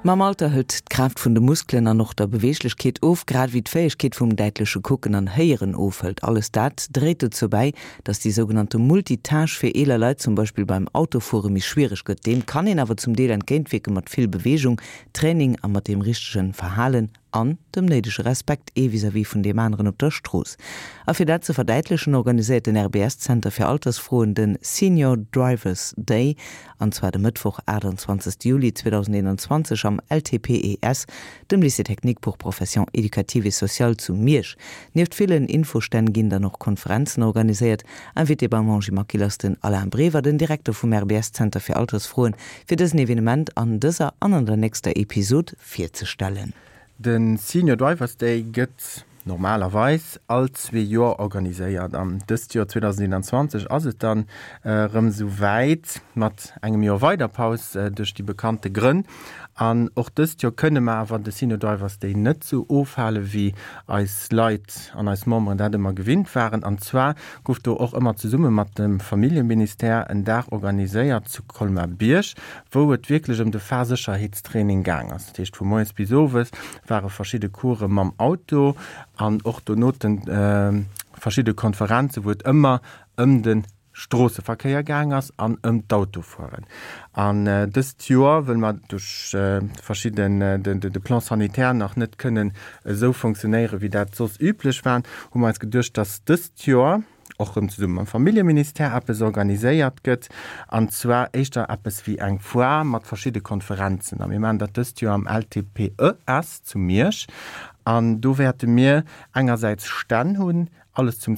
Mam Alter hëlt d'Kraaft vun de Muskelen an och der Beweeglechkeet of, grad ewéi d'Fäegkeet vum däitleche Kucken an Héieren ofhëlt. Alles dat dréit dozou bäi, dass déi sougenannte Multitâche fir eeler Leit zum Beispill beim Autofuere méi schwiereg gëtt. Deem kann een awer zum Deel entgéintwierke mat vill Beweegung, Training a mat deem richtegen Verhalen an dem néidege Respekt ee vis-à-vis vun deem aneren op der Strooss. A fir dat ze verdäitlechen, organiséiert den RBS-Zenter fir Altersfroen de Senior Drivers Day, an zwar de Mëttwoch, 28 Juli 2021 am LTPES, dem Lycée technique pour professions éducatives et sociales zu Miersch. Nieft villen Infostänn ginn dann och Konferenzen organiséiert. Invité beim Angie Maquil ass den Alain Brever, den Direkter vum RBS-Zenter fir Altersfroen, fir dësen Evenement an dëser an an der nächster Episod virzestellen. De Senior Drivers Day gëtt normalerweis all zwee Joer organiséiert an dëst Joer 2021 ass et dann erëm esou wäit, mat engem Joer weider Paus duerch déi bekannte Grënn. An och dëst Joer kënne mer awer de Senior Drivers Day net esou ofhale wéi eis Leit an eis Memberen dat ëmmer gewinnt waren. An zwar gouf do och ëmmer zesumme mat dem Familljeministère en Dag organiséiert zu Colmar-Bierg, wou et wierklech ëm de Fahrsécherheetstraining gaang ass. Dat heescht vu moies bis owes ware verschidde Course mam Auto an och donoten verschidde Konferenzen, wou et ëmmer ëm de Stroosseverkéier gaang ass an ëm d'Autofueren. An dëst Joer, wëll mer duerch verschidden de Plan sanitaire nach net kënnen esou fonctionnéieren, wéi dat soss üblech war, hu mer eis geduecht, dass dëst Joer, och rëm zesumme mam Familljeministère eppes organiséiert gëtt, an zwar éischter eppes wéi eng Foire mat verschidde Konferenzen. A mir maachen dat dëst Joer am LTPES zu Miersch. An do wäerte mir engersäits Stänn hunn, alles zum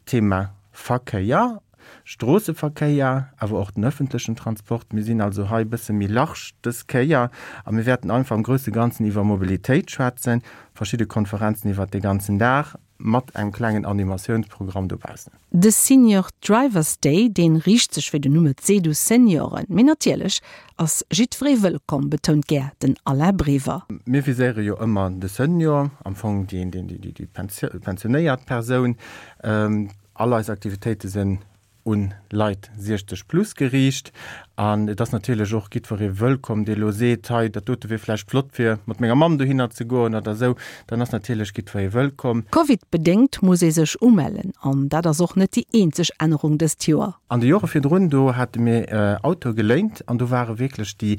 Thema Verkéier, Stroosseverkéier, awer och den ëffentlechen Transport. Mir sinn also hei e bësse méi large dës Kéier a mir wäerten einfach am grousse Ganzen iwwer Mobilitéit schwätzen, verschidde Konferenzen iwwert de ganzen Dag. Mat engem klengen Animatiounsprogramm dobaussen. De Senior Drivers Day, dee riicht sech wéi den Numm et seet u Senioren. Mee natierlech ass jiddweree wëllkomm, betount gär den Alain Brever. Mir viséiere jo ëmmer de Senior, am Fong déi pensionéiert Persoun. All eis Aktivitéite sinn un Leit 60 plus geriicht an et ass natierlech och jiddweree wëllkomm, dee elo seet, hei dat dote wier vläicht flott fir mat menger Mamm dohinner ze goen oder esou, dann ass natierlech jiddweree wëllkomm. Covid-bedéngt muss ee sech umellen an dat ass och net déi eenzeg Ännerung dëst Joer. An de Jore virdrun, do hate mir Autoe geléint an do ware wierklech déi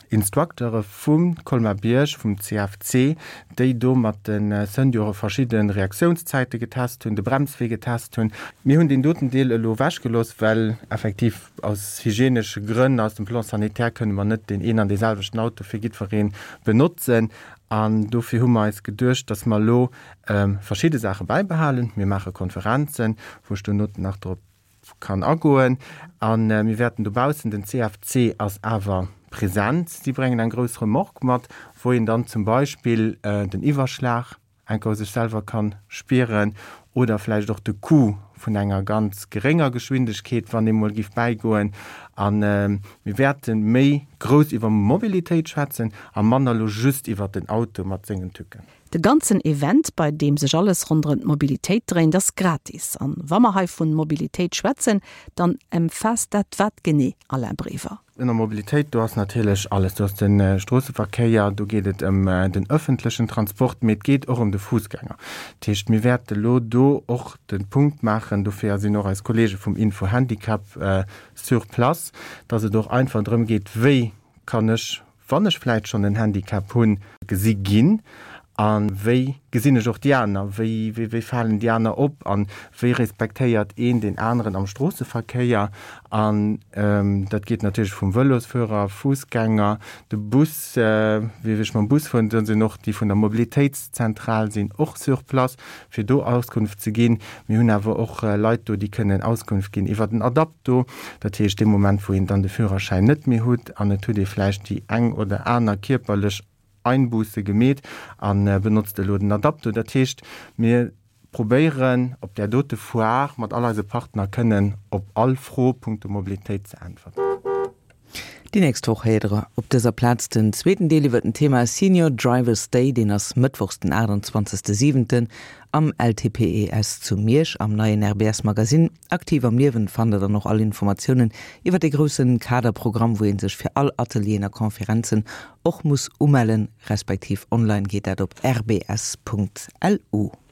Instructeure vum Colmar-Bierg, vum CFC, déi do mat de Senioren verschidde Reaktiounszäite getest hunn, de Bremswee getest hunn. Mir hunn deen doten Deel elo ewechgelooss, well effektiv aus hygienesche Grënn, aus dem Plan sanitaire kënne mer net deen een an dee selwechten Auto fir jiddweree benotzen. An dofir hu mer eis geduecht, dass mer elo verschidde Saache bäibehalen. Mir maache Konferenzen, wou ech dono nach drop kann agoen. A mir wäerten dobaussen, den CFC ass awer present, si bréngen eng grouss Remorque mat, wou een dann zum Beispill den Iwwerschlag enker sech selwer kann spieren oder vläicht och de Coup vun enger ganz gerénger Geschwindegkeet, wann ee mol giff bäigoen. A mir wäerte méi grouss iwwer Mobilitéit schwätzen a manner elo just iwwer den Auto mat sengen Tücken. De ganzen Event, bei deem sech alles ronderëm d'Mobilitéit dréint, ass gratis. An wa mer hei vun Mobilitéit schwätzen, dann emfaasst dat wat genee, Alain Brever? Ënner Mobilitéit, do ass natierlech alles. Do ass de Stroosseverkéier, do geet et ëm den ëffentlechen Transport, mee et geet och ëm de Fussgänger. Dat heescht, mir wäerte lo do och de Punkt maachen, dofir sinn och eis Kollege vum Info Handicap sur place, dass et och einfach drëm geet, wéi kann ech wann ech vläit schonn en Handicap hunn, gesi ginn a wéi gesinn ech och déi aner, wéi wéi falen déi aner op a wéi respektéiert een deen aneren am Stroosseverkéier. An dat geet natierlech vum Vëlosfuerer, Fussgänger, de Bus, wéi ech mam Bus fueren, do sinn och déi vun der Mobilitéitszentral sinn och sur place, fir do Auskunft ze ginn. Mir hunn awer och Leit do, déi kënnen Auskunft ginn iwwer den Adapto, dat heescht dee Moment, wou een dann de Führerschäin net méi hutt an et hutt ee vläicht déi eng oder aner kierperlech Einbuße gemeet a benotzt elo den Adapto. Dat heescht, mir probéieren op där dote Foire mat all eise Partner kënnen op all Fro punkto Mobilitéit ze äntwerten. Déi nächst Woch héiert der op dëser Plaz den zweeten Deel iwwer den Thema Senior Drivers Day. Deen ass mëttwochs den 28 siwenten am LTPES zu Miersch. Am neien RBS Magasinn Aktiv am Liewen fannt der dann och all Informatiounen iwwer dee groussen Kaderprogramm, wou ee sech fir all Atelieren a Konferenzen och muss umellen, respektiv online geet dat op rbs.lu.